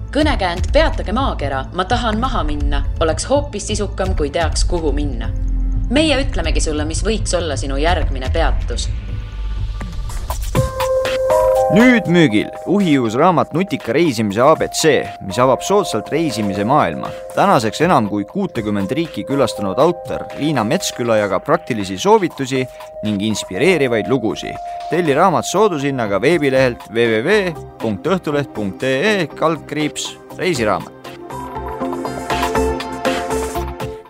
Kõnekäänd Peatage maakera, ma tahan maha minna, oleks hoopis sisukam, kui teaks, kuhu minna. Meie ütlemegi sulle, mis võiks olla sinu järgmine peatus. Nüüd müügil uhiuus raamat Nutika reisimise ABC, mis avab soodsalt reisimise maailma. Tänaseks enam kui 60 riiki külastanud autor Liina Metsküla jagab praktilisi soovitusi ning inspireerivaid lugusi. Telli raamat soodushinnaga veebilehelt www.õhtuleht.ee/reisiraamat.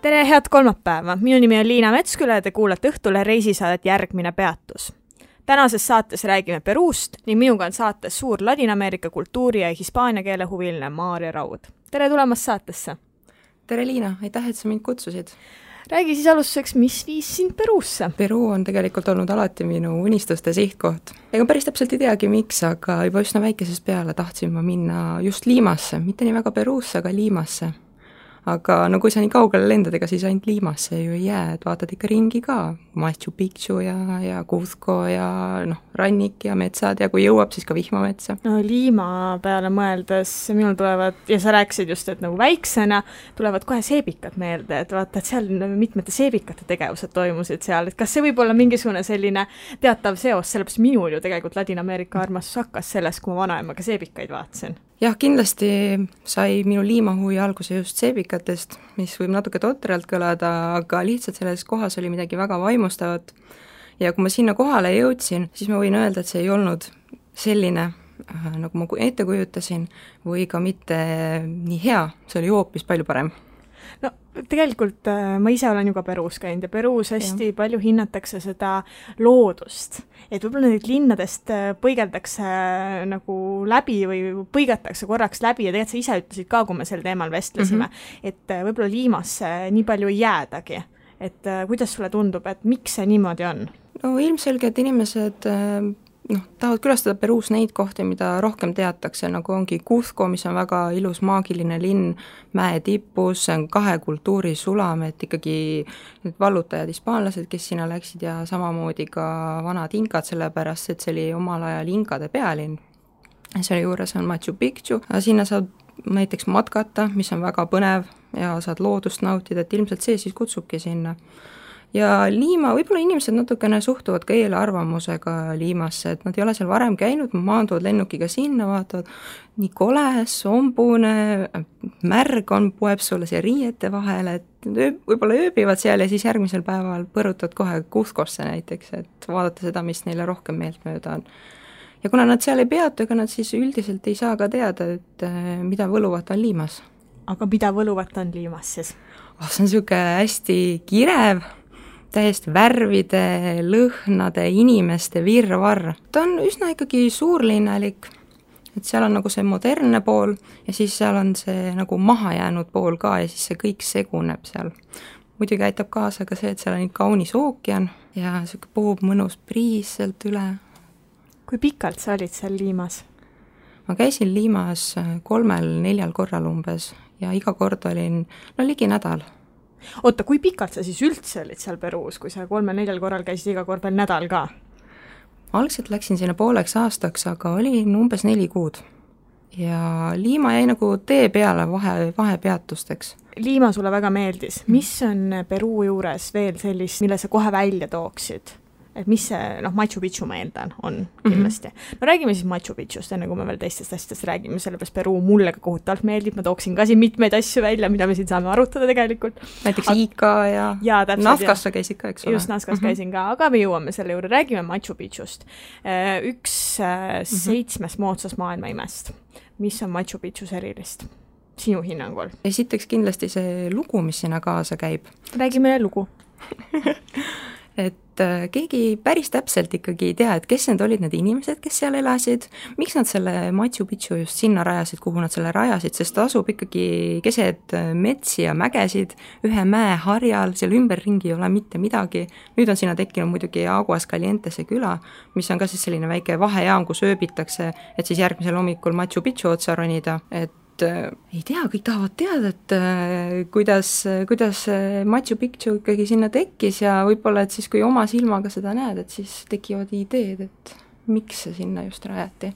Tere, head kolmapäeva! Minu nimi on Liina Metsküla ja te kuulate Õhtule reisisaadet Järgmine peatus. Tänases saates räägime Peruust ning minuga on saates suur Ladina-Ameerika kultuuri ja hispaania keele huviline Maarja Raud. Tere tulemast saatesse! Tere Liina, aitäh, et sa mind kutsusid. Räägi siis alustuseks, mis viis sind Peruusse? Peru on tegelikult olnud alati minu unistuste sihtkoht. Ega päris täpselt ei teagi miks, aga juba üsna väikesest peale tahtsin ma minna just Limasse, mitte nii väga Peruusse, aga Limasse. Aga no kui sa nii kaugele lendad, ega siis ainult Limasse ju ei jää, et vaatad ikka ringi ka, Machu Picchu ja Cuzco ja rannik ja metsad ja kui jõuab, siis ka vihmametsa. No Lima peale mõeldes minul tulevad, ja sa rääkisid just, et nagu väiksena tulevad kohe seebikad meelde, et vaata, et seal mitmete seebikate tegevused toimusid seal, et kas see võib olla mingisugune selline teatav seos, sellepärast minul ju tegelikult Ladina-Ameerika armastus hakkas sellest, kui ma vanaemaga seebikaid vaatasin. Jah, kindlasti sai minu liimahuvi alguse just seebikatest, mis võib natuke totralt kõlada, aga lihtsalt selles kohas oli midagi väga vaimustavat. Ja kui ma sinna kohale jõudsin, siis ma võin öelda, et see ei olnud selline, nagu ma ette kujutasin, või ka mitte nii hea, see oli hoopis palju parem. No tegelikult ma ise olen ju ka Peruus käinud ja Peruus hästi palju hinnatakse seda loodust. Et võib-olla neid linnadest põigeldakse nagu läbi või põigatakse korraks läbi ja tegelikult sa ise ütlesid ka, kui me sel teemal vestlesime, et võib-olla Liimasse nii palju ei jäädagi. Et kuidas sulle tundub, et miks see niimoodi on? No ilmselgelt inimesed tahavad külastada Peruus neid kohti, mida rohkem teatakse, nagu ongi Cuzco, mis on väga ilus maagiline linn mäe tipus, see on 2 kultuuri sulam, et ikkagi need vallutajad hispaanlased, kes sinna läksid ja samamoodi ka vanad inkad, sellepärast et see oli omal ajal inkade pealinn. Selle juures on Machu Picchu, sinna saad näiteks matkata, mis on väga põnev ja saad loodust nautida, et ilmselt see siis kutsubki sinna. Ja Liima, võib-olla inimesed natukene suhtuvad ka eelarvamusega Liimasse, et nad ei ole seal varem käinud, maanduvad lennukiga sinna, vaatavad nii kole, sombune, märg on, poeb sulle siia riiete vahele, et võib-olla ööbivad seal ja siis järgmisel päeval põrutad kohe Cuzcosse näiteks, et vaadata seda, mis neile rohkem meeltmööda on. Ja kuna nad seal ei peatu, ega nad siis üldiselt ei saa ka teada, et mida võluvat on Liimas. Aga mida võluvat on Liimas siis? See on siuke hästi kirev, täiesti värvide, lõhnade, inimeste virvarr. Ta on üsna ikkagi suurlinnalik, et seal on nagu see modernne pool ja siis seal on see nagu maha jäänud pool ka ja siis see kõik seguneb seal. Muidugi aitab kaasa ka see, et seal on kaunis ookean ja siuke puhub mõnus priis sealt üle. Kui pikalt sa olid seal Liimas? Ma käisin Liimas 3-4 korral umbes ja iga kord olin ligi nädal. Oota, kui pikalt sa siis üldse olid seal Peruus, kui sa 3-4 korral käisid iga kord veel nädal ka? Algselt läksin sinna pooleks aastaks, aga olin umbes 4 kuud. Ja Liima jäi nagu tee peale vahepeatusteks. Liima sulle väga meeldis. Mis on Peruu juures veel sellist, mille sa kohe välja tooksid? Et mis see, Machu Picchu ma eeldan on kindlasti. No räägime siis Machu Picchust, enne kui me veel teistest asjadest räägime, sellepärast Peruu mulle ka kohutavalt meeldib, ma tooksin ka siin mitmeid asju välja, mida me siin saame arutada tegelikult. Näiteks Ica ja Nazcas sa käisid ka, eks ole? Just, Nazcas käisin ka, aga me jõuame selle juurde, räägime Machu Picchust. Üks 7 moodsas maailma imest. Mis on Machu Picchus erilist? Sinu hinnangul? Esiteks kindlasti see lugu, mis sinna kaasa käib. Räägime lugu. Et keegi päris täpselt ikkagi ei tea, et kes need olid need inimesed, kes seal elasid, miks nad selle Machu Picchu just sinna rajasid, kuhu nad selle rajasid, sest ta asub ikkagi keset metsi ja mägesid, ühe mäe harjal, seal ümberringi ei ole mitte midagi. Nüüd on sinna tekkinud muidugi Aguascalientese küla, mis on ka siis selline väike vahejaam, kus ööbitakse, et siis järgmisel hommikul Machu Picchu otsa ronida, et ei tea, kõik tahavad teada, et kuidas Machu Picchu ikkagi sinna tekkis ja võib-olla, et siis kui oma silmaga seda näed, et siis tekivad ideed, et miks see sinna just rajati.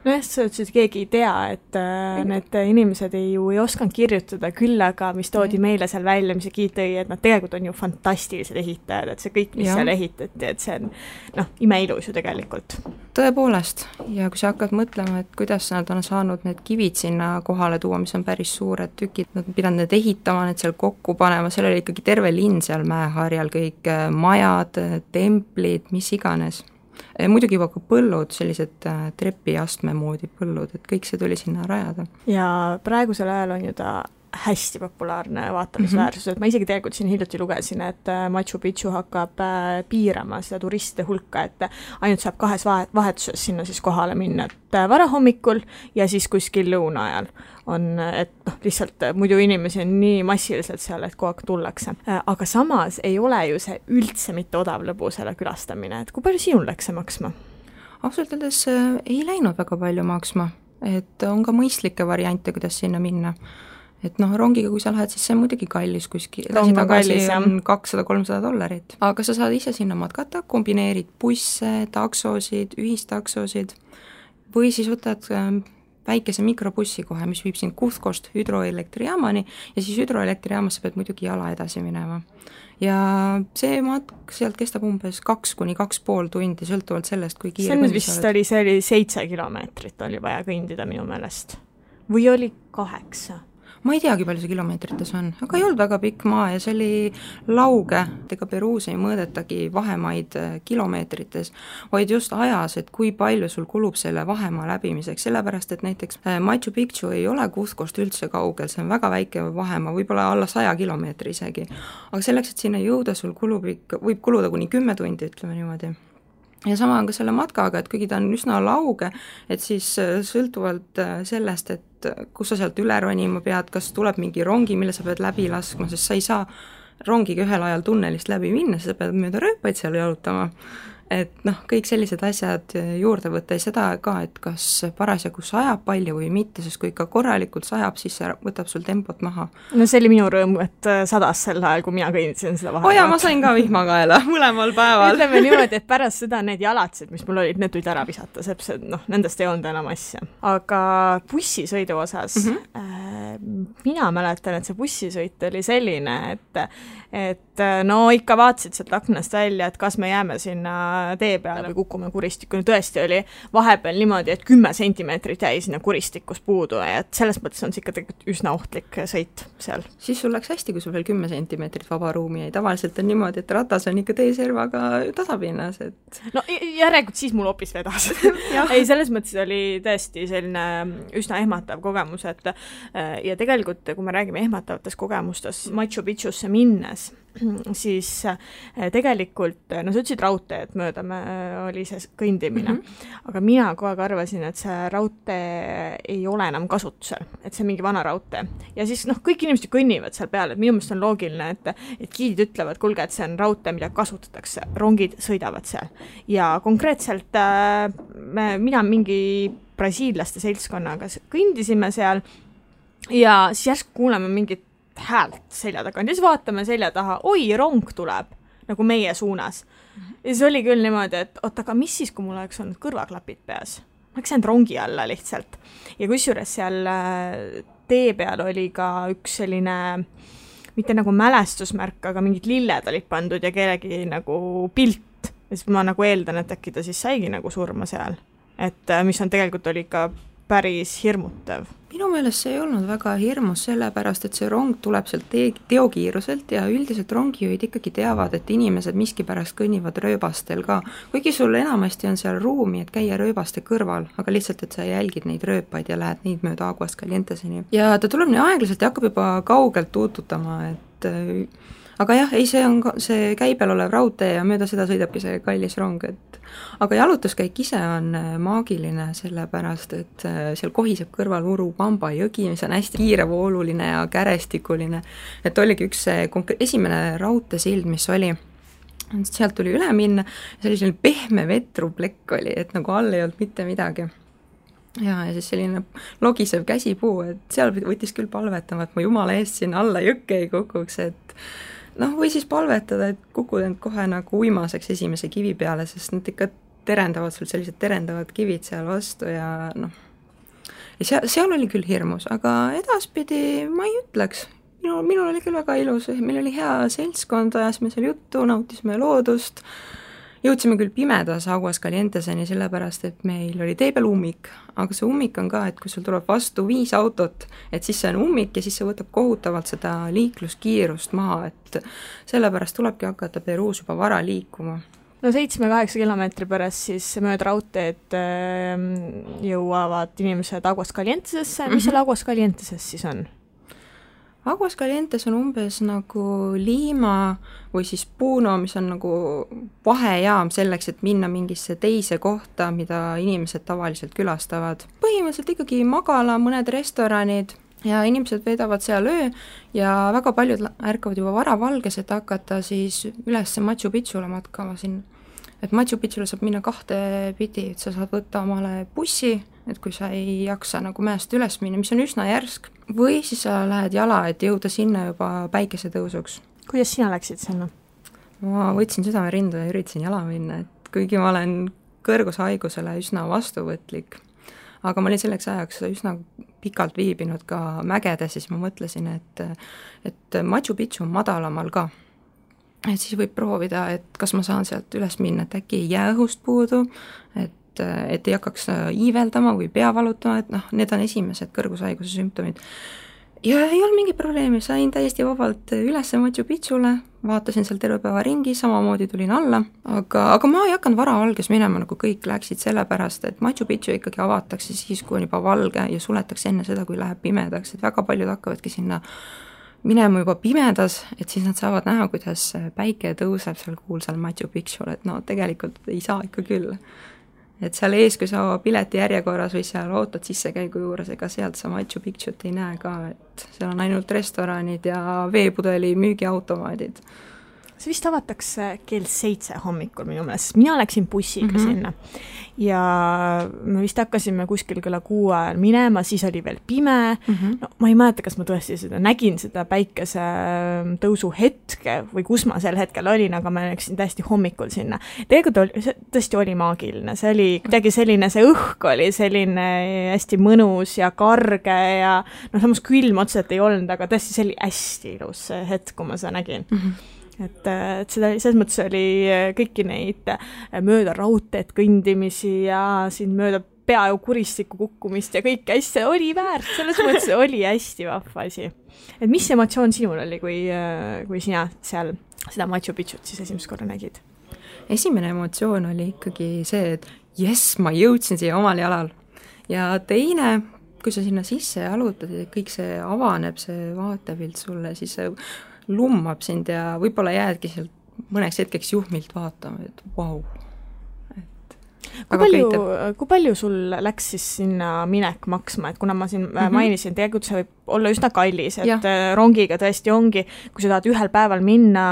nojah, sa ütlesid, keegi ei tea, et need inimesed ei osanud kirjutada, küll aga mis toodi meile seal välja, mis see giid tõi, et nad tegelikult on ju fantastilised ehitajad, et see kõik, mis seal ehitati, et see on imeilus ju tegelikult. Tõepoolest, ja kui sa hakkad mõtlema, et kuidas nad on saanud need kivid sinna kohale tuua, mis on päris suured tükid, nad pidanud need ehitama, need seal kokku panema, seal oli ikkagi terve linn seal mäeharjal, kõik majad, templid, mis iganes. Muidugi juba ka põllud, sellised trepiastme moodi põllud, et kõik see tuli sinna rajada. Ja praegusel ajal on ju ta hästi populaarne vaatamisväärsus, et ma isegi tegelikult siin hiljuti lugesin, et Machu Picchu hakkab piirama seda turistide hulka, et ainult saab 2 vahetuses sinna siis kohale minna, et varahommikul ja siis kuskil lõuna ajal on, et lihtsalt muidu inimesi on nii massiliselt seal, et kogu aeg tullakse. Aga samas ei ole ju see üldse mitte odav lõbu selle külastamine, et kui palju sinul läks see maksma? Ausalt öeldes ei läinud väga palju maksma, et on ka mõistlikke variante, kuidas sinna minna. Et rongiga, kui sa lähed, siis see on muidugi kallis kuskil, tagasi on $200-300, aga sa saad ise sinna matkata, kombineerid busse, taksosid, ühistaksosid või siis võtad väikese mikrobussi kohe, mis viib sind Cuzcost hüdroelektrijaamani ja siis hüdroelektrijaamas sa pead muidugi jala edasi minema. Ja see matk sealt kestab umbes 2–2,5 tundi, sõltuvalt sellest, kui kiire see oli 7 kilomeetrit oli vaja kõndida minu meelest. Või oli 8? Ma ei teagi, palju see kilomeetrites on, aga ei olnud väga pikk maa ja see oli lauge, ega Peruus ei mõõdetagi vahemaid kilomeetrites, vaid just ajas, et kui palju sul kulub selle vahemaa läbimiseks, sellepärast et näiteks Machu Picchu ei ole Cuzcost üldse kaugel, see on väga väike vahemaa, võib-olla alla 100 kilomeetri isegi, aga selleks, et sinna jõuda, sul võib kuluda kuni 10 tundi, ütleme niimoodi. Ja sama on ka selle matkaga, et kuigi ta on üsna lauge, et siis sõltuvalt sellest, et kus sa sealt üle ronima pead, kas tuleb mingi rongi, mille sa pead läbi laskma, sest sa ei saa rongiga ühel ajal tunnelist läbi minna, sa pead mööda rööpaid seal jalutama. Et kõik sellised asjad juurde võtta ja seda ka, et kas parasjagu sajab palju või mitte, sest kui ikka korralikult sajab, siis see võtab sul tempot maha. No see oli minu rõõm, et sadas sel ajal, kui mina kõindisin seda vahel. Ma sain ka vihmakaela mõlemal päeval. Ütleme niimoodi, et pärast seda need jalatsed, mis mul olid, need tulid ära visata, seps, et nendest ei olnud enam asja. Aga bussisõidu osas mina mäletan, et see bussisõit oli selline, et ikka vaatasid sealt aknast välja, et kas me jääme sinna tee peale või kukume kuristikku. Tõesti oli vahepeal niimoodi, et 10 sentimeetrit jäi sinna kuristikus puudu ja et selles mõttes on see ikka tegelikult üsna ohtlik sõit seal. Siis sul läks hästi, kui sul veel 10 sentimeetrit vaba ruumi jäi. Tavaliselt on niimoodi, et ratas on ikka teeservaga tasapinnas. Et... No järelikult siis mul hoopis vedas. Ei, selles mõttes oli tõesti selline üsna ehmatav kogemus, et ja tegelikult, kui me räägime ehmatavatest kogemustest Machu Picchusse minnes, siis tegelikult, sa ütlesid raudteed mööda oli see kõndimine, aga mina kogu aeg arvasin, et see raudtee ei ole enam kasutusel, et see on mingi vana raudtee. Ja siis kõik inimesed kõnnivad seal peale, et minu meelest on loogiline, et giidid ütlevad, kuulge, et see on raudtee, mida kasutatakse, rongid sõidavad seal. Ja konkreetselt mina mingi brasiillaste seltskonnaga kõndisime seal ja siis järsku kuuleme mingit häält selja taga, ja siis vaatame selja taha, oi, rong tuleb nagu meie suunas. Ja siis oli küll niimoodi, et aga mis siis, kui mul oleks olnud kõrvaklapid peas? Ma oleks jäänud rongi alla lihtsalt. Ja kusjuures seal tee peal oli ka üks selline, mitte nagu mälestusmärk, aga mingid lilled olid pandud ja kellegi nagu pilt. Ja siis ma nagu eeldan, et äkki ta siis saigi nagu surma seal. Et mis on tegelikult oli ka päris hirmutav. Minu meelest see ei olnud väga hirmus, sellepärast, et see rong tuleb sealt teokiiruselt ja üldiselt rongijuhid ikkagi teavad, et inimesed miskipärast kõnnivad rööbastel ka. Kuigi sul enamasti on seal ruumi, et käia rööbaste kõrval, aga lihtsalt, et sa jälgid neid rööpaid ja lähed neid mööda Aguas Calienteseni. Ja ta tuleb nii aeglaselt ja hakkab juba kaugelt tuututama, et... Aga jah, ei, see käibel olev raudtee ja mööda seda sõidabki see kallis rong, et aga jalutuskäik ise on maagiline, sellepärast, et seal kohiseb kõrval Urubamba jõgi, mis on hästi kiirevooluline ja kärestikuline, et oligi üks esimene raudteesild, mis oli, sealt tuli üle minna, see oli selline pehme vetruplekk oli, et nagu all ei olnud mitte midagi. Ja siis selline logisev käsipuu, et seal võttis küll palvetama, et ma jumala eest sinna alla jõkke ei kukuks, et või siis palvetada, et kukud end kohe nagu uimaseks esimese kivi peale, sest nad ikka terendavad sul sellised terendavad kivid seal vastu ja noh, ja seal oli küll hirmus, aga edaspidi ma ei ütleks. Minul oli küll väga ilus, meil oli hea seltskond, ajasime seal juttu, nautisime loodust, jõudsime küll pimedas Aguascalienteseni, sellepärast, et meil oli tee peal ummik, aga see ummik on ka, et kui sul tuleb vastu 5 autot, et siis see on ummik ja siis see võtab kohutavalt seda liikluskiirust maha, et sellepärast tulebki hakata Peruus juba vara liikuma. No 7-8 kilomeetri pärast siis mööda raudteed jõuavad inimesed Aguascalientesesse. Mis seal Aguascalienteses siis on? Aguascalientes on umbes nagu Lima või siis Puno, mis on nagu vahejaam selleks, et minna mingisse teise kohta, mida inimesed tavaliselt külastavad. Põhimõtteliselt ikkagi magala, mõned restoranid ja inimesed veedavad seal öö ja väga paljud ärkavad juba varavalges, et hakata siis üles Machu Picchule matkama sinna. Et Machu Picchule saab minna 2 pidi, et sa saad võtta omale bussi, et kui sa ei jaksa nagu mäest üles minna, mis on üsna järsk, või siis sa lähed jala, et jõuda sinna juba päikesetõusuks. Kuidas sina läksid sinna? Ma võtsin südamerindu ja üritasin jala minna, et kuigi ma olen kõrgushaigusele üsna vastuvõtlik, aga ma olin selleks ajaks üsna pikalt viibinud ka mägedes, siis ma mõtlesin, et Machu Picchu on madalamal ka. Et siis võib proovida, et kas ma saan sealt üles minna, et äkki ei jää õhust puudu, et ei hakkaks iiveldama või pea valutama, et noh, need on esimesed kõrgushaiguse sümptomid. Ja ei olnud mingi probleemi, sain täiesti vabalt üles Machu Picchule, vaatasin seal terve päeva ringi, samamoodi tulin alla, aga ma ei hakanud varavalges minema, nagu kõik läksid sellepärast, et Machu Picchu ikkagi avatakse siis, kui on juba valge ja suletakse enne seda, kui läheb pimedaks, et väga paljud hakkavadki sinna minema juba pimedas, et siis nad saavad näha, kuidas päike tõuseb seal kuulsal Machu Picchul, et no tegelikult ei saa ikka küll. Et seal ees, kui sa pileti järjekorras või seal ootad sissekäigu juures, ega sealt sa Machu Picchut ei näe ka, et seal on ainult restoranid ja veepudeli müügiautomaadid. See vist avatakse kell 7 hommikul minu meelest, mina läksin bussiga sinna ja me vist hakkasime kuskil kella 6 ajal minema, siis oli veel pime, no ma ei mäleta, kas ma tõesti nägin seda päikese tõusu hetke või kus ma sel hetkel olin, aga ma läksin täiesti hommikul sinna. Tegelikult tõesti oli maagiline, see oli kuidagi selline, see õhk oli selline hästi mõnus ja karge ja no samas külm otseselt ei olnud, aga tõesti see oli hästi ilus see hetk, kui ma seda nägin. Et seda, selles mõttes oli kõiki neid mööda raudteed kõndimisi ja siin mööda peaaegu kuristikku kukkumist ja kõik hästi oli väärt, selles mõttes oli hästi vahva asi. Et mis emotsioon sinul oli, kui sina seal seda Machu Picchut siis esimest korda nägid? Esimene emotsioon oli ikkagi see, et jess, ma jõudsin siia omal jalal. Ja teine, kui sa sinna sisse jalutad ja kõik see avaneb, see vaatepilt sulle, siis see lummab sind ja võib-olla jäädki sealt mõneks hetkeks juhmilt vaatama, et vau. Kui palju sul läks siis sinna minek maksma, et kuna ma siin mainisin, tegelikult see võib olla üsna kallis, et rongiga tõesti ongi, kui sa tahad ühel päeval minna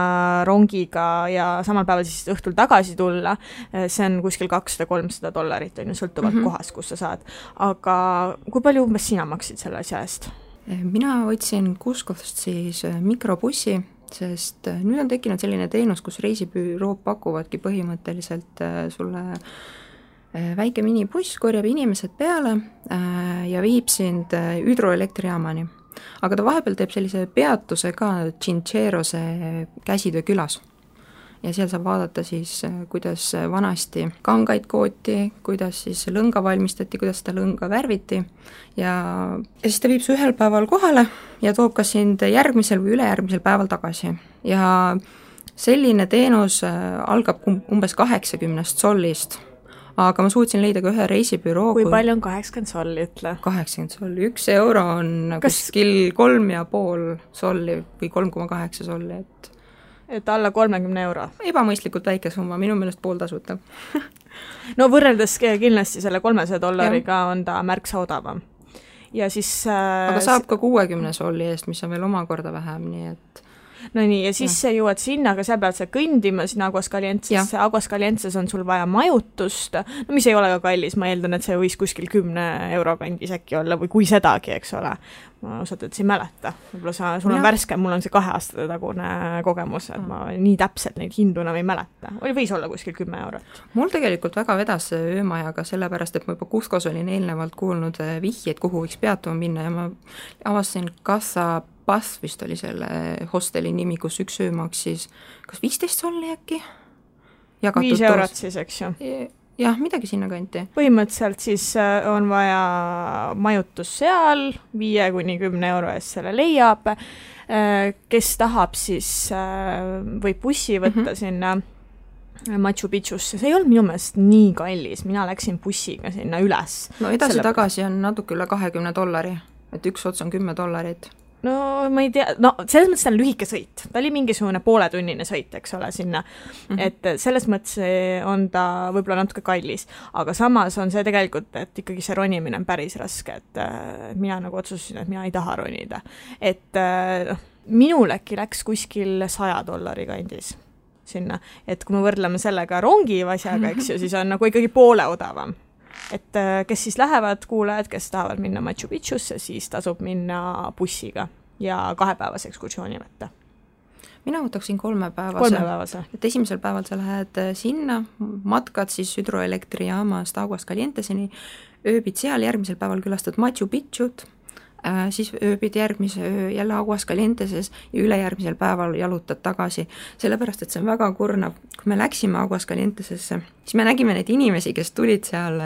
rongiga ja samal päeval siis õhtul tagasi tulla, see on kuskil $200-300, on ju, sõltuvalt kohast, kus sa saad. Aga kui palju umbes sina maksid selle asja eest? Mina võtsin Cuscost siis mikrobussi, sest nüüd on tekkinud selline teenus, kus reisibürood pakuvadki põhimõtteliselt sulle väike minibuss, korjab inimesed peale ja viib sind hüdroelektrijaamani. Aga ta vahepeal teeb sellise peatuse ka Chincherose käsitöö külas. Ja seal saab vaadata siis, kuidas vanasti kangaid kooti, kuidas siis lõnga valmistati, kuidas seda lõnga värviti ja siis ta viib su ühel päeval kohale ja toob ka sind järgmisel või ülejärgmisel päeval tagasi. Ja selline teenus algab umbes 80 sollist, aga ma suutsin leida ka ühe reisibüroo. Kui palju on 80 solli, ütle? 80 solli, €1 on kuskil 3,5 solli või 3,8 solli, et alla 30 €. Ebamõistlikult väike summa, minu meelest pool tasuta. No võrreldes kindlasti selle $300 on ta märksa odavam. Ja siis... Aga saab ka 60 solli eest, mis on veel omakorda vähem, nii et... no nii, ja siis sa jõuad sinna, aga seal pead sa kõndima sinna Aguascalientesesse, Aguascalientes on sul vaja majutust, no mis ei ole ka kallis, ma eeldan, et see võis kuskil 10 euro kandis äkki olla või kui sedagi, eks ole. Ma osalt, et sa ei mäleta. Võib-olla sul on värske, mul on see 2 aastate tagune kogemus, et ma nii täpselt neid hindu enam ei mäleta. Võis olla kuskil 10 eurot. Mul tegelikult väga vedas öömajaga, sellepärast, et ma juba Cuscos olin eelnevalt kuulnud vihjeid, kuhu võiks peatuma minna ja ma avastasin Casa Paz vist oli selle hosteli nimi, kus üks öö maksis kas 15 solli äkki? 5 eurot siis, eks ju? Jah, midagi sinna kanti. Põhimõtteliselt siis on vaja majutus seal, 5–10 euro eest selle leiab. Kes tahab, siis võib bussi võtta sinna Machu Picchusse. See ei olnud minu meelest nii kallis, mina läksin bussiga sinna üles. No edasi-tagasi on natuke üle $20, et üks ots on $10. No ma ei tea, no selles mõttes ta on lühike sõit, ta oli mingisugune pooletunnine sõit, eks ole, sinna, et selles mõttes on ta võib-olla natuke kallis, aga samas on see tegelikult, et ikkagi see ronimine on päris raske, et mina nagu otsustasin, et mina ei taha ronida, et minul äkki läks kuskil $100 kandis sinna, et kui me võrdleme sellega rongi asjaga, eks ju, siis on nagu ikkagi poole odavam. Et kes siis lähevad kuulajad, kes tahavad minna Machu Picchusse, siis tasub minna bussiga ja 2-päevase ekskursiooni võtta. Mina võtaksin 3-päevase. Et esimesel päeval sa lähed sinna, matkad siis hüdroelektrijaamast Aguascalienteseni, ööbid seal, järgmisel päeval külastad Machu Picchut, siis ööbid järgmise öö jälle Aguascalienteses ja ülejärgmisel päeval jalutad tagasi. Sellepärast, et see on väga kurnav. Kui me läksime Aguascalientesesse, siis me nägime neid inimesi, kes tulid seal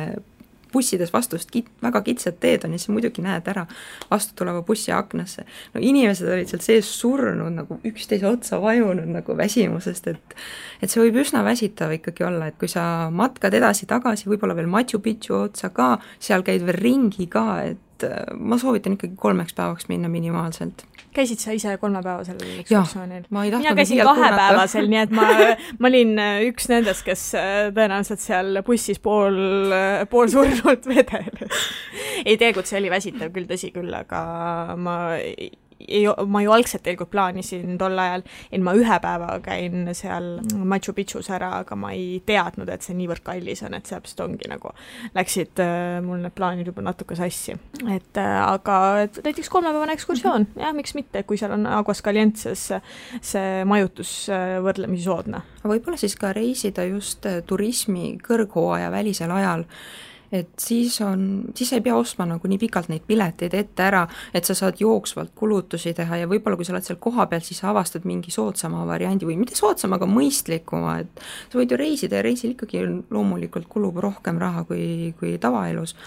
bussides vastust väga kitsad teed on ja siis muidugi näed ära vastu tuleva bussi aknasse. No inimesed olid seal sees surnud, nagu üksteise otsa vajunud nagu väsimusest, et see võib üsna väsitav ikkagi olla, et kui sa matkad edasi-tagasi, võib-olla veel Machu Picchu otsa ka, seal käid veel ringi ka, et ma soovitan ikkagi 3 päevaks minna minimaalselt. Käisid sa ise 3-päevasel ekskursioonil? Mina käisin 2-päevasel, nii et ma olin üks nendest, kes tõenäoliselt seal bussis pool surnud vedeles. Ei teegut, see oli väsitav küll, tõsi küll, aga ma ju algselt tegelikult plaanisin tol ajal, et ma 1 päeva käin seal Machu Picchus ära, aga ma ei teadnud, et see niivõrd kallis on, et sealt ongi nagu läksid mul need plaanid juba natuke sassi. Aga näiteks 3-päevane ekskursioon, jah, miks mitte, kui seal on Aguascalientes see majutus võrdlemisi soodne. Võib-olla siis ka reisida just turismi kõrghooaja välisel ajal, et siis ei pea ostma nagu nii pikalt neid pileteid ette ära, et sa saad jooksvalt kulutusi teha ja võib-olla kui sa oled seal koha peal, siis sa avastad mingi soodsama variandi või mitte soodsama, aga mõistlikuma, et sa võid ju reisida ja reisil ikkagi loomulikult kulub rohkem raha kui tavaelus,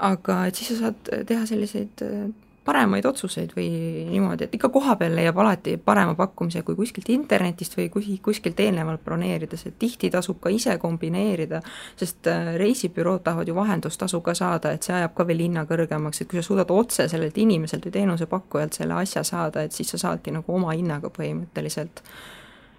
aga et siis sa saad teha selliseid paremaid otsuseid või niimoodi, et ikka koha peal leiab alati parema pakkumise kui kuskilt internetist või kuskilt eelnevalt broneerides, et tihti tasub ka ise kombineerida, sest reisibürood tahavad ju vahendustasu ka saada, et see ajab ka veel hinna kõrgemaks, et kui sa suudad otse sellelt inimeselt või teenusepakkujalt selle asja saada, et siis sa saadki nagu oma hinnaga põhimõtteliselt.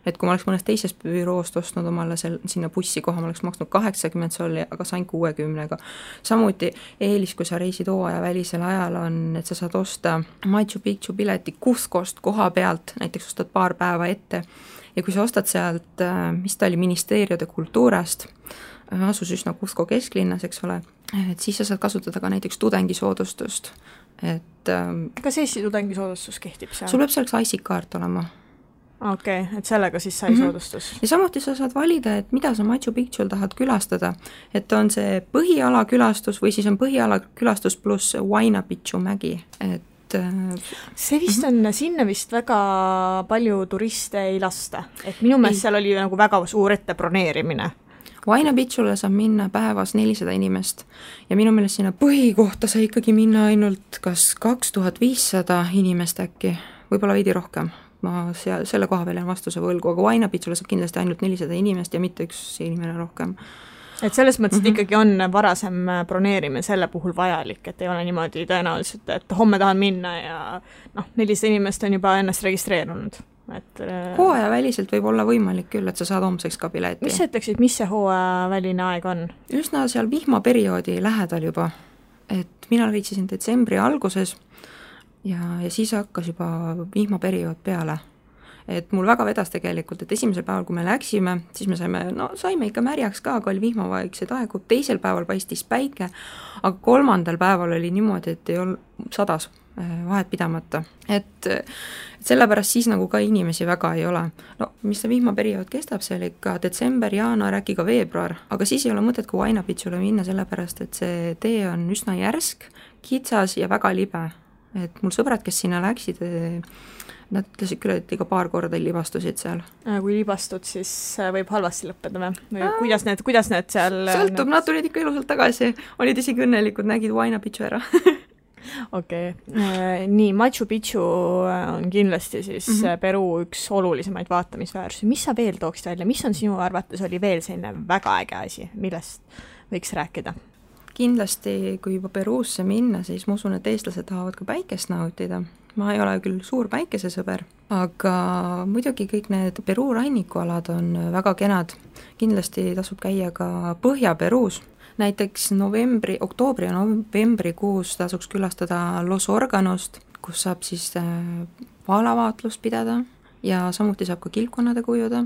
Et kui ma oleks mõnest teisest büroost ostnud omale sinna bussi koha, ma oleks maksnud 80 solli, aga sain 60-ga. Samuti eelis, kui sa reisid hooaja välisel ajal on, et sa saad osta Machu Picchu pileti Cuscost koha pealt, näiteks ostad 2 päeva ette ja kui sa ostad sealt, mis ta oli, Ministerio de Culturast, asus üsna Cusco kesklinnas, eks ole, et siis sa saad kasutada ka näiteks tudengisoodustust. Kas Eesti tudengisoodustus kehtib seal? Sul peab selleks IC-kaart olema. Okei, et sellega siis sai soodustus. Ja samuti sa saad valida, et mida sa Machu Picchul tahad külastada, et on see põhiala külastus või siis on põhiala külastus pluss Huayna Picchu mägi, et see vist on, sinna vist väga palju turiste ei lasta, et minu meelest seal oli nagu väga suur ette broneerimine. Huayna Picchule saab minna päevas 400 inimest ja minu meelest sinna põhikohta sai ikkagi minna ainult kas 2500 inimest äkki, võib-olla veidi rohkem. Ma selle koha peal on vastuse võlgu, aga Huayna Picchule saab kindlasti ainult 400 inimest ja mitte üks inimene rohkem. Et selles mõttes ikkagi on varasem broneerimine selle puhul vajalik, et ei ole niimoodi tõenäoliselt, et homme tahan minna ja 400 inimest on juba ennast registreerunud. Hooaja väliselt võib olla võimalik küll, et sa saad homseks ka pileti. Mis sa ütleksid, mis see hooaja väline aeg on? Üsna seal vihmaperioodi lähedal juba, et mina reitsisin detsembri alguses ja siis hakkas juba vihmaperiood peale. et mul väga vedas tegelikult, et esimesel päeval, kui me läksime, siis me saime ikka märjaks ka, aga oli vihmavaikseid aegu, teisel päeval paistis päike, aga kolmandal päeval oli niimoodi, et ei olnud sadas vahet pidamata. Et sellepärast siis nagu ka inimesi väga ei ole. No mis see vihmaperiood kestab, see oli ikka detsember, jaanuar, äkki ka veebruar, aga siis ei ole mõtet ka Huayna Picchule minna, sellepärast et see tee on üsna järsk, kitsas ja väga libe. Et mul sõbrad, kes sinna läksid, nad ütlesid küll, et iga paar korda libastusid seal. Kui libastud, siis võib halvasti lõppeda või kuidas need seal... Sõltub, nad tulid ikka ilusalt tagasi, olid isegi õnnelikud, nägid Huayna Picchu ära. Okei. Nii, Machu Picchu on kindlasti siis Peru üks olulisemaid vaatamisväärsusi. Mis sa veel tooksid välja? Mis on sinu arvates oli veel selline väga äge asi, millest võiks rääkida? Kindlasti, kui juba Peruusse minna, siis ma usun, et eestlased tahavad ka päikest nautida. Ma ei ole küll suur päikesesõber, aga muidugi kõik need Peruu rannikualad on väga kenad. Kindlasti tasub käia ka Põhja-Peruus. Näiteks oktoobri ja novembrikuus tasuks külastada Los Organost, kus saab siis vaalavaatlust pidada ja samuti saab ka kilpkonnade kujuda.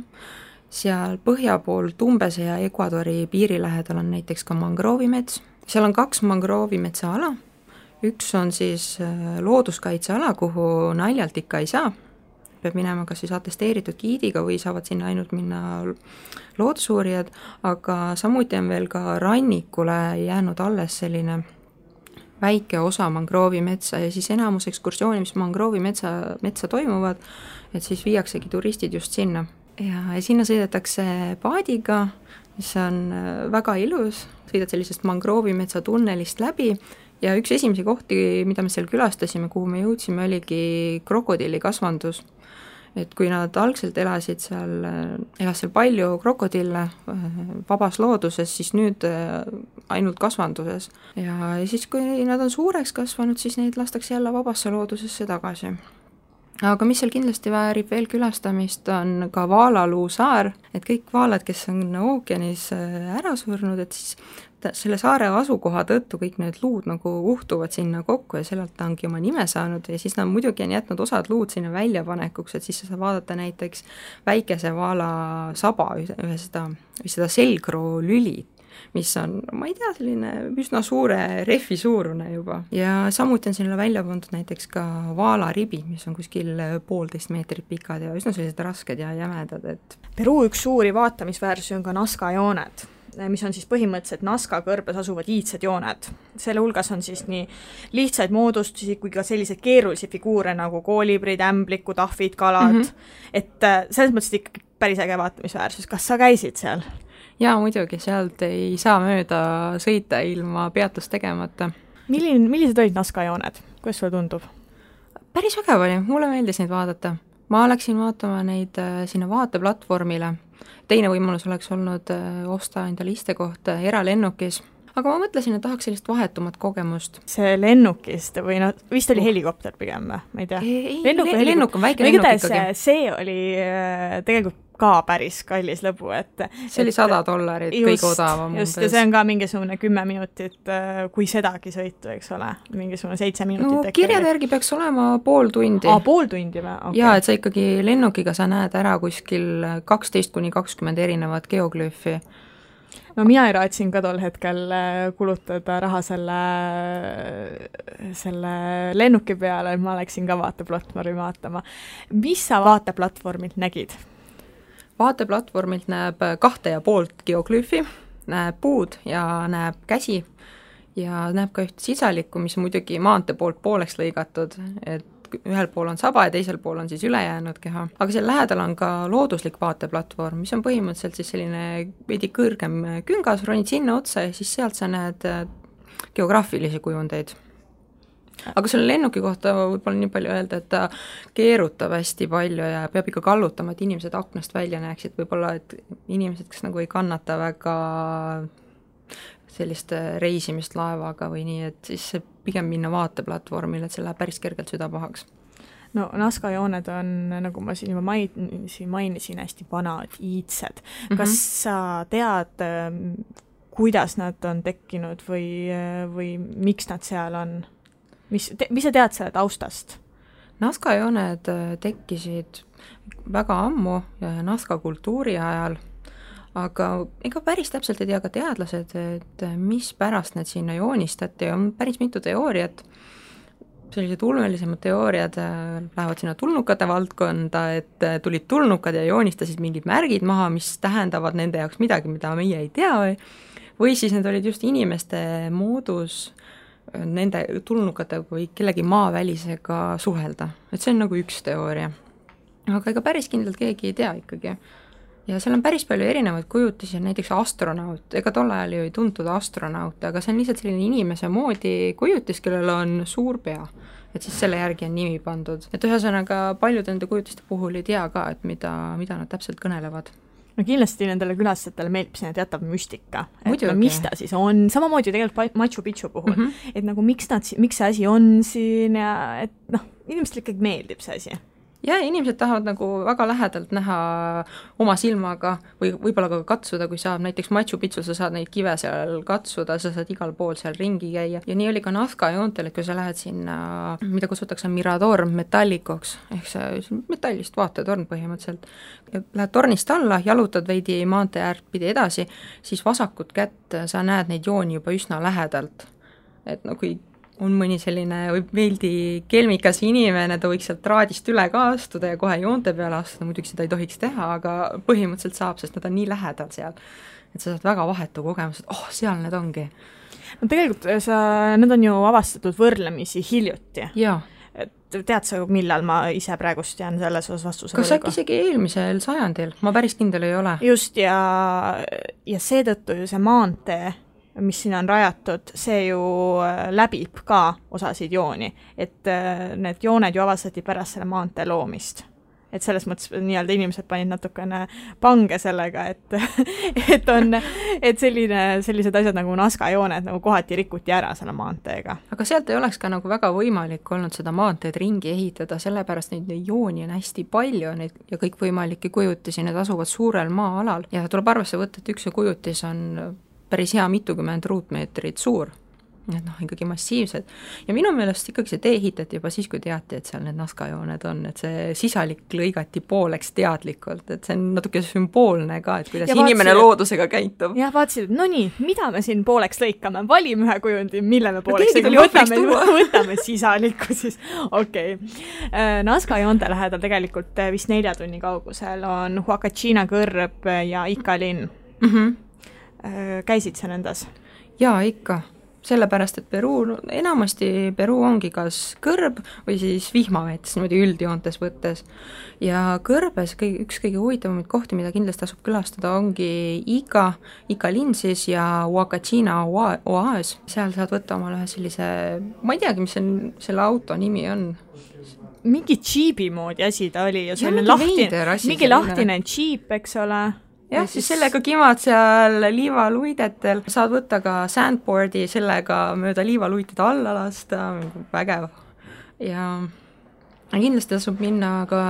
Seal põhja pool Tumbese ja Ecuadori piiri lähedal on näiteks ka mangroovimets. Seal on 2 mangroovimetsa ala. Üks on siis looduskaitseala, kuhu naljalt ikka ei saa. Peab minema kas siis atesteeritud giidiga või saavad sinna ainult minna loodusuurijad, aga samuti on veel ka rannikule jäänud alles selline väike osa mangroovimetsa ja siis enamus ekskursiooni, mis mangroovimetsa toimuvad, et siis viiaksegi turistid just sinna. Ja sinna sõidetakse paadiga, mis on väga ilus, sõidad sellisest mangroovimetsa tunnelist läbi ja üks esimesi kohti, mida me seal külastasime, kuhu me jõudsime, oligi krokodillikasvandus. Et kui nad algselt elas seal palju krokodille vabas looduses, siis nüüd ainult kasvanduses. Ja siis, kui nad on suureks kasvanud, siis neid lastakse jälle vabasse loodusesse tagasi. Aga mis seal kindlasti väärib veel külastamist, on ka Vaalaluu saar, et kõik vaalad, kes on ookeanis ära surnud, et siis selle saare asukoha tõttu kõik need luud nagu uhtuvad sinna kokku ja sellelt ta ongi oma nime saanud ja siis nad muidugi on jätnud osad luud sinna väljapanekuks, et siis sa saad vaadata näiteks väikese vaala saba või seda selgroo lüli, mis on, ma ei tea, selline üsna suure rehvi suurune juba. Ja samuti on sinna välja pandud näiteks ka vaalaribi, mis on kuskil 1,5 meetrit pikad ja üsna sellised rasked ja jämedad. Et... Peru üks suuri vaatamisväärsusi on ka Nazca jooned, mis on siis põhimõtteliselt Nazca kõrbes asuvad iidsed jooned. Selle hulgas on siis nii lihtsaid moodustusi kui ka selliseid keerulisi figuure nagu koolibrid, ämblikud, ahvid, kalad. Et selles mõttes ikkagi päris äge vaatamisväärsus. Kas sa käisid seal? Jaa, muidugi, sealt ei saa mööda sõita ilma peatust tegemata. Millised olid Nazca jooned? Kuidas sulle tundub? Päris vägev oli, mulle meeldis neid vaadata. Ma läksin vaatama neid sinna vaateplatvormile. Teine võimalus oleks olnud osta endale istekoht eralennukis. Aga ma mõtlesin, et tahaks sellist vahetumat kogemust. See lennukist või vist oli helikopter pigem, ma ei tea. Lennuk on väike lennuk ikkagi. See oli tegelikult ka päris kallis lõbu, et... See oli $100, kõige odavam. Just, ja see on ka mingisugune 10 minutit, kui sedagi sõitu, eks ole, mingisugune 7 minutit. No kirjade järgi peaks olema pool tundi. Pool tundi või? Okay. Jaa, et sa ikkagi lennukiga sa näed ära kuskil 12-20 erinevat geoglüüfi. No mina ei raatsin ka tol hetkel kulutada raha selle lennuki peale, et ma läksin ka vaateplatvormi vaatama. Mis sa vaateplatvormilt nägid? Vaateplatvormilt näeb 2,5 geoglüüfi, näeb puud ja näeb käsi ja näeb ka üht sisalikku, mis muidugi maantee poolt pooleks lõigatud, et ühel pool on saba ja teisel pool on siis ülejäänud keha. Aga seal lähedal on ka looduslik vaateplatvorm, mis on põhimõtteliselt siis selline veidi kõrgem küngas, ronid sinna otsa ja siis sealt sa näed geograafilisi kujundeid. Aga selle lennuki kohta võib-olla nii palju öelda, et ta keerutab hästi palju ja peab ikka kallutama, et inimesed aknast välja näeksid, võib-olla et inimesed, kes nagu ei kannata väga sellist reisimist laevaga või nii, et siis pigem minna vaateplatvormile, et see läheb päris kergelt süda pahaks. No Nazca jooned on, nagu ma siin juba mainisin, hästi vanad, iidsed. Kas sa tead, kuidas nad on tekkinud või miks nad seal on? Mis sa tead selle taustast? Nazca jooned tekkisid väga ammu, Nazca kultuuri ajal, aga ega päris täpselt ei tea ka teadlased, et mis pärast need sinna joonistati, on päris mitu teooriat, sellised ulmelisemad teooriad lähevad sinna tulnukate valdkonda, et tulid tulnukad ja joonistasid mingid märgid maha, mis tähendavad nende jaoks midagi, mida meie ei tea, või siis need olid just inimeste moodus nende tulnukate või kellegi maavälisega suhelda, et see on nagu üks teooria. Aga ega päris kindlalt keegi ei tea ikkagi. Ja seal on päris palju erinevaid kujutisi, näiteks astronaut, ega tol ajal ju ei tuntud astronaut, aga see on lihtsalt selline inimese moodi kujutis, kellel on suur pea, et siis selle järgi on nimi pandud. Et ühesõnaga paljud nende kujutiste puhul ei tea ka, et mida nad täpselt kõnelevad. No kindlasti nendele külastajatele meeldib sinna teatav müstika, et muidugi. No, mis ta siis on, samamoodi tegelikult Machu Picchu puhul, et nagu miks see asi on siin ja et noh, inimestele ikkagi meeldib see asi. Ja inimesed tahavad nagu väga lähedalt näha oma silmaga või võib-olla ka katsuda, kui saab näiteks Machu Picchu, sa saad neid kive seal katsuda, sa saad igal pool seal ringi käia. Ja nii oli ka Nazca joontel, et kui sa lähed sinna, mida kutsutakse Mirador metallikoks, ehk see metallist vaatetorn põhimõtteliselt, lähed tornist alla, jalutad veidi maantee äärt pidi edasi, siis vasakut kätt sa näed neid jooni juba üsna lähedalt. Et no kui on mõni selline veeldi kelmikas inimene, ta võiks sealt traadist üle ka astuda ja kohe joonte peale astuda, muidugi seda ei tohiks teha, aga põhimõtteliselt saab, sest nad on nii lähedal seal, et sa saad väga vahetu kogemus, et seal need ongi. No tegelikult need on ju avastatud võrdlemisi hiljuti. Jaa. Et tead sa, millal ma ise praegust jään selles osas vastuse kas äkki isegi eelmisel sajandil? Ma päris kindel ei ole. Just, ja seetõttu ju see maantee, mis siin on rajatud, see ju läbib ka osasid jooni, et need jooned ju avastati pärast selle maantee loomist. Et selles mõttes nii-öelda inimesed panid natukene pange sellega, et sellised asjad nagu Nazca jooned nagu kohati rikuti ära selle maanteega. Aga sealt ei oleks ka nagu väga võimalik olnud seda maanteed ringi ehitada, sellepärast neid jooni on hästi palju neid, ja kõik võimalikke kujutisi, need asuvad suurel maa-alal ja tuleb arvesse võtta, et üks kujutis on päris hea mitukümmend ruutmeetrit suur. Need ikkagi massiivsed. Ja minu meelest ikkagi see tee ehitati juba siis, kui teati, et seal need Nazca jooned on, et see sisalik lõigati pooleks teadlikult, et see on natuke sümboolne ka, et kuidas inimene loodusega käitub. Jah, vaatasid, et no nii, mida me siin pooleks lõikame? Valime ühe kujundi, mille me pooleks võtame sisalikku siis. Okei. Nazca joonte lähedal tegelikult vist 4 tunni kaugusel on Huacachina kõrb ja Ica linn. Käisid sa nendas? Jaa, ikka. Sellepärast, et enamasti Peruu ongi kas kõrb või siis vihmaveetes, niimoodi üldjoontes võttes. Ja kõrbes üks kõige huvitavamaid kohti, mida kindlasti tasub külastada, ongi Ica linn siis ja Huacachina oaas. Seal saad võtta omale ühe sellise, ma ei teagi, mis selle auto nimi on. Mingi džiibi moodi asi ta oli. Ja mingi lahtine džiip, eks ole. Jah, siis sellega kimad seal liivaluidetel, saad võtta ka sandboardi, sellega mööda liivaluited alla lasta, vägev. Ja kindlasti tasub minna ka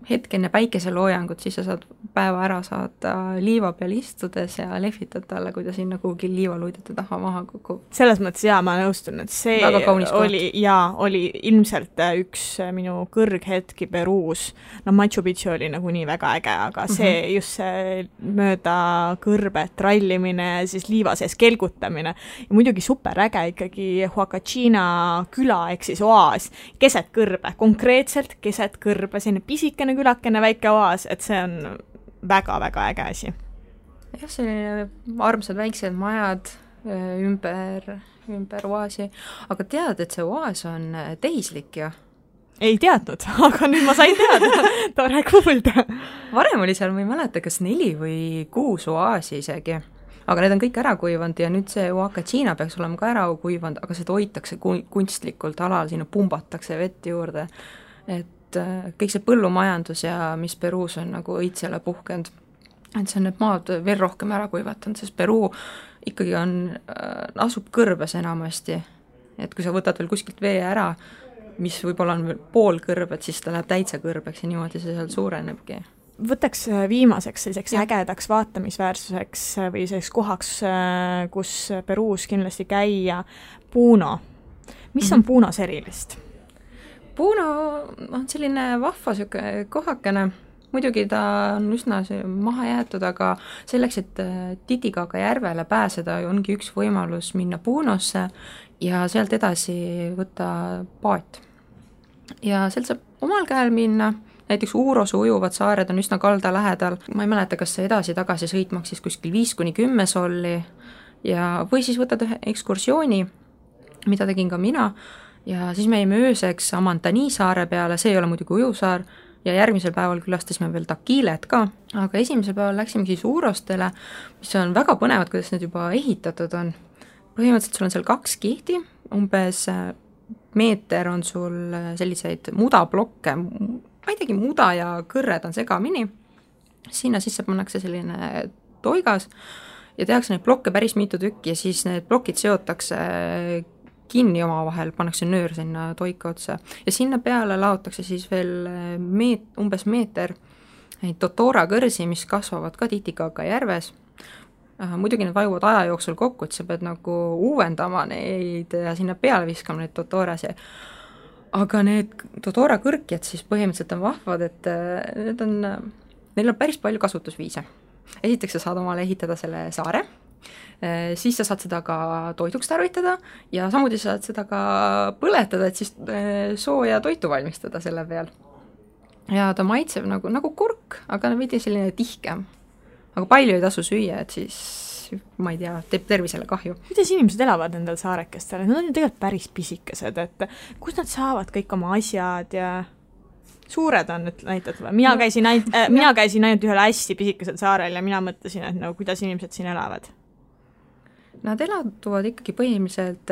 hetk enne päikeseloojangut, siis sa saad päeva ära saada liiva peal istudes ja lehvitad talle, kui ta sinna kuhugi liivaluidete taha maha kukub. Selles mõttes ma nõustun, et see oli ilmselt üks minu kõrghetki Peruus. No Machu Picchu oli nagu nii väga äge, aga see just see mööda kõrbet rallimine, siis liiva sees kelgutamine ja muidugi super äge ikkagi Huacachina küla, ehk siis oaas, keset kõrbe, konkreetselt keset kõrbe, selline pisikene külakene väike oaas, et see on väga-väga äge asi. Jah, selline armsad väiksed majad ümber oaasi, aga tead, et see oaas on tehislik ju? Ei teadnud, aga nüüd ma sain teada, tore kuulda. Varem oli seal, ma ei mäleta, kas 4 või 6 oaasi isegi. Aga need on kõik ära kuivanud ja nüüd see Huacachina peaks olema ka ära kuivanud, aga seda hoitakse kunstlikult alal, sinna pumbatakse vett juurde. Et kõik see põllumajandus ja mis Peruus on nagu õitsele puhkenud, et see on need maad veel rohkem ära kuivatanud, sest Peruu ikkagi asub kõrbes enamasti. Et kui sa võtad veel kuskilt vee ära, mis võib-olla on veel pool kõrbet, siis ta läheb täitsa kõrbeks ja niimoodi see seal suurenebki. Võtaks viimaseks selliseks ägedaks vaatamisväärsuseks või selliseks kohaks, kus Peruus kindlasti käia, Puno. Mis on Punos erilist? Puno on selline vahva kohakene, muidugi ta on üsna maha jäetud, aga selleks, et Titicaca järvele pääseda, ongi üks võimalus minna Punosse ja sealt edasi võtta paat. Ja sealt saab omal käel minna, näiteks Uurose ujuvad saared on üsna kalda lähedal, ma ei mäleta, kas see edasi-tagasi sõit maksis kuskil 5-10 solli ja või siis võtad ühe ekskursiooni, mida tegin ka mina, ja siis me jäime ööseks Amantani saare peale, see ei ole muidugi ujusaar, ja järgmisel päeval külastasime veel Takilet ka, aga esimesel päeval läksime siis Uurostele, mis on väga põnevad, kuidas need juba ehitatud on. Põhimõtteliselt sul on seal 2 kihti, umbes meeter on sul selliseid mudablokke, ma ei teagi, muda ja kõrred on segamini, sinna sisse pannakse selline toigas ja tehakse neid blokke päris mitu tükki ja siis need plokid seotakse kinni omavahel, pannakse nöör sinna toika otsa ja sinna peale laotakse siis veel umbes meeter neid Totora kõrsi, mis kasvavad ka Titicaca järves. Muidugi need vajuvad aja jooksul kokku, et sa pead nagu uuendama neid ja sinna peale viskama neid Totorasi. Aga need Totora kõrkjad siis põhimõtteliselt on vahvad, et neil on päris palju kasutusviise. Esiteks sa saad omale ehitada selle saare, siis sa saad seda ka toiduks tarvitada ja samuti saad seda ka põletada, et siis sooja toitu valmistada selle peal. Ja ta maitseb nagu kurk, aga veidi selline tihkem. Aga palju ei tasu süüa, et siis, ma ei tea, teeb tervisele kahju. Kuidas inimesed elavad nendel saarekestel? Nad on ju tegelikult päris pisikesed, et kus nad saavad kõik oma asjad ja suured on, et näitad, mina käisin ainult ühel hästi pisikesel saarel ja mina mõtlesin, et kuidas inimesed siin elavad. Nad elatuvad ikkagi põhimõtteliselt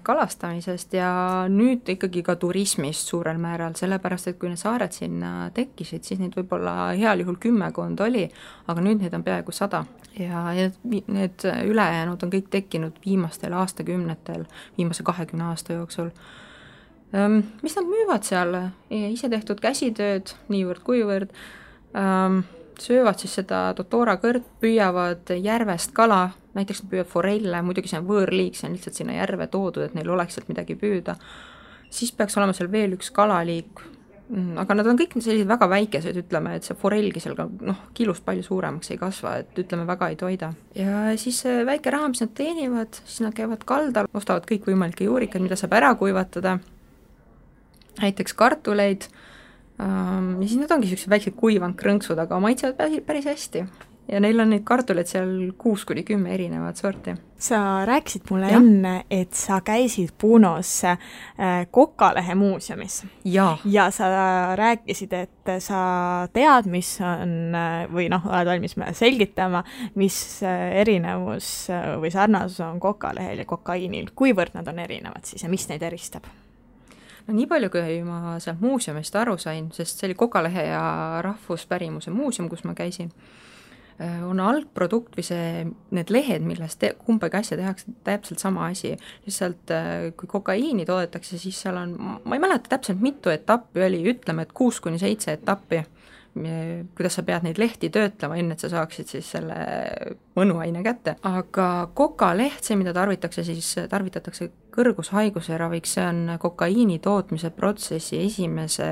kalastamisest ja nüüd ikkagi ka turismist suurel määral, sellepärast, et kui need saared sinna tekkisid, siis neid võib-olla heal juhul 10 oli, aga nüüd neid on peaaegu 100. Ja need ülejäänud on kõik tekkinud viimastel aastakümnetel, viimase 20 aasta jooksul. Mis nad müüvad seal? Ise tehtud käsitööd, niivõrd kuivõrd, söövad siis seda Totora kõrt, püüavad järvest kala, näiteks nad püüavad forelle, muidugi see on võõrliik, see on lihtsalt sinna järve toodud, et neil oleks sealt midagi püüda. Siis peaks olema seal veel üks kalaliik, aga nad on kõik sellised väga väikesed, ütleme, et see forellgi seal ka kilust palju suuremaks ei kasva, et ütleme väga ei toida. Ja siis väike raha, mis nad teenivad, siis nad käivad kaldal, ostavad kõik võimalikke juurikad, mida saab ära kuivatada, näiteks kartuleid, ja siis need ongi sellised väiksed kuivanud krõnksud, aga maitsevad päris hästi. Ja neil on neid kartuleid seal 6-10 erinevat sorti. Sa rääkisid mulle enne, et sa käisid Punos Kokalehe muuseumis. Ja sa rääkisid, et sa tead, mis on, või oled valmis selgitama, mis erinevus või sarnasus on Kokalehel ja kokaiinil. Kuivõrd nad on erinevad siis ja mis neid eristab? No nii palju, kui ma sealt muuseumist aru sain, sest see oli Kokalehe ja rahvuspärimuse muuseum, kus ma käisin, on algprodukt või need lehed, millest kumbagi asja tehakse täpselt sama asi. Lihtsalt kui kokaiini toodetakse, siis seal on, ma ei mäleta täpselt mitu etappi oli, ütleme, et 6-7 etappi, kuidas sa pead neid lehti töötlema, enne et sa saaksid siis selle mõnuaine kätte. Aga kokaleht, see mida tarvitatakse kõrgushaiguse raviks, see on kokaiini tootmise protsessi esimese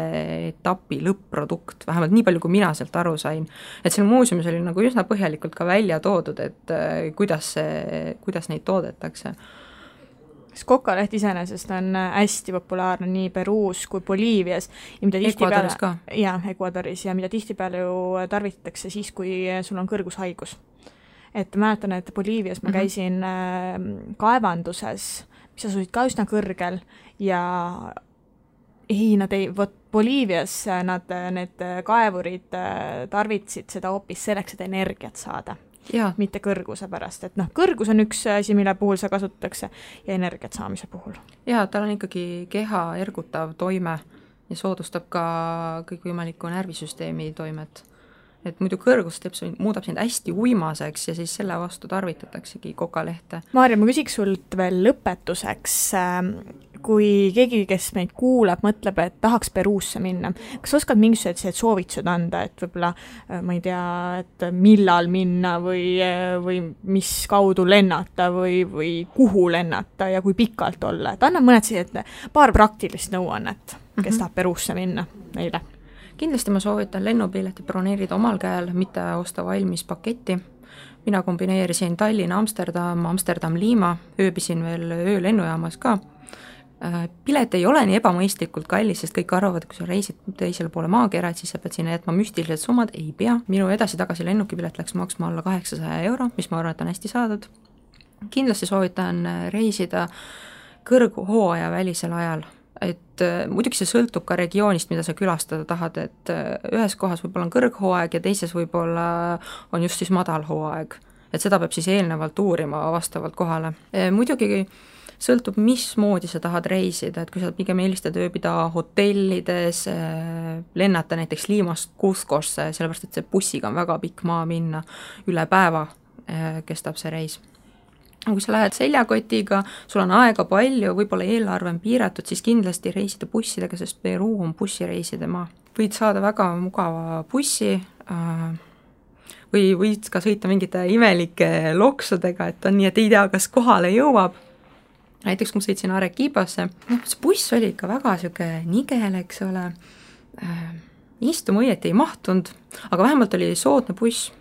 etapi lõpp-produkt, vähemalt nii palju, kui mina sealt aru sain. Et seal muuseumis oli üsna põhjalikult ka välja toodud, et kuidas neid toodetakse. Kokaleht iseenesest on hästi populaarne nii Peruus kui Boliivias. Ecuadoris ka. Jah, Ecuadoris ja mida tihtipeale ju tarvitatakse siis, kui sul on kõrgushaigus. Et mäletan, et Boliivias ma käisin kaevanduses, mis asusid ka üsna kõrgel ja Boliivias need kaevurid tarvitsid seda hoopis selleks, et energiat saada. Ja. Mitte kõrguse pärast, et kõrgus on üks asi, mille puhul see kasutatakse ja energiat saamise puhul. Ja, tal on ikkagi keha ergutav toime ja soodustab ka kõikvõimaliku närvisüsteemi toimet. Et muidu kõrgus muudab sind hästi uimaseks ja siis selle vastu tarvitataksegi kokalehte. Maarja, ma küsiks sult veel lõpetuseks, kui keegi, kes meid kuulab, mõtleb, et tahaks Peruusse minna. Kas oskad mingisugused soovitused anda, et võib-olla, ma ei tea, et millal minna või mis kaudu lennata või kuhu lennata ja kui pikalt olla? Et anna mõned paar praktilist nõuannet, kes tahab Peruusse minna neile. kindlasti ma soovitan lennupileti broneerida omal käel, mitte osta valmis paketti. Mina kombineerisin Tallinn, Amsterdam, Amsterdam-Liima, ööbisin veel öölennujaamas ka. Pilet ei ole nii ebamõistlikult kallis, sest kõik arvavad, kui sa reisid teisele poole maakera, et siis sa pead sinna jätma müstilised summad, ei pea. Minu edasi-tagasi lennukipilet läks maksma alla 800 €, mis ma arvan, et on hästi saadud. Kindlasti soovitan reisida kõrghooaja välisel ajal, et muidugi see sõltub ka regioonist, mida sa külastada tahad, et ühes kohas võib-olla on kõrghooaeg ja teises võib-olla on just siis madal hooaeg, et seda peab siis eelnevalt uurima vastavalt kohale. Muidugi sõltub, mismoodi sa tahad reisida, et kui sa pigem eelistad ööbida hotellides, lennata näiteks Liimast Cuscosse, sellepärast et see bussiga on väga pikk maa minna, üle päeva kestab see reis. Kui sa lähed seljakotiga, sul on aega palju, võib-olla eelarve on piiratud, siis kindlasti reisida bussidega, sest Peruu on bussireiside maa. Võid saada väga mugava bussi või võid ka sõita mingite imelike loksudega, et on nii, et ei tea, kas kohale jõuab. Näiteks kui ma sõitsin Arequipasse, see buss oli ikka väga siuke nigel, eks ole, istuma õieti ei mahtunud, aga vähemalt oli soodne buss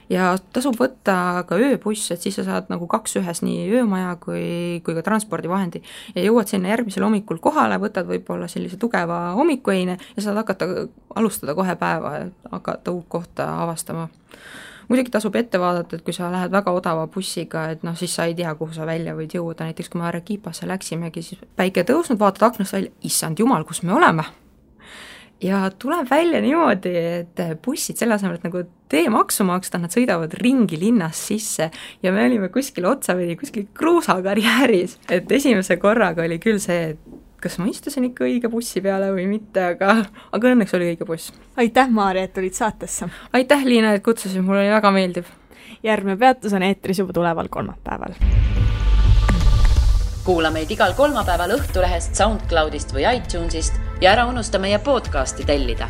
ja tasub võtta ka ööbuss, et siis sa saad nagu 2 ühes nii öömaja kui ka transpordivahendi ja jõuad sinna järgmisel hommikul kohale, võtad võib-olla sellise tugeva hommikueine ja saad alustada kohe päeva ja hakata uut kohta avastama. Muidugi tasub ette vaadata, et kui sa lähed väga odava bussiga, et siis sa ei tea, kuhu sa välja võid jõuda, näiteks kui me Arequipasse läksimegi, siis päike tõusnud, vaatad aknast välja, issand jumal, kus me oleme. Ja tuleb välja niimoodi, et bussid selle asemel, et nagu teemaksu maksta, nad sõidavad ringi linnas sisse ja me olime kuskil otsavedi, kuskil kruusakarjääris, et esimese korraga oli küll see, et kas ma istusin ikka õige bussi peale või mitte, aga õnneks oli õige buss. Aitäh, Maarja, et tulid saatesse. Aitäh, Liina, et kutsusid, mul oli väga meeldiv. Järgmine peatus on eetris juba tuleval kolmapäeval. Kuula meid igal kolmapäeval Õhtulehest, SoundCloudist või iTunesist ja ära unusta meie podcasti tellida.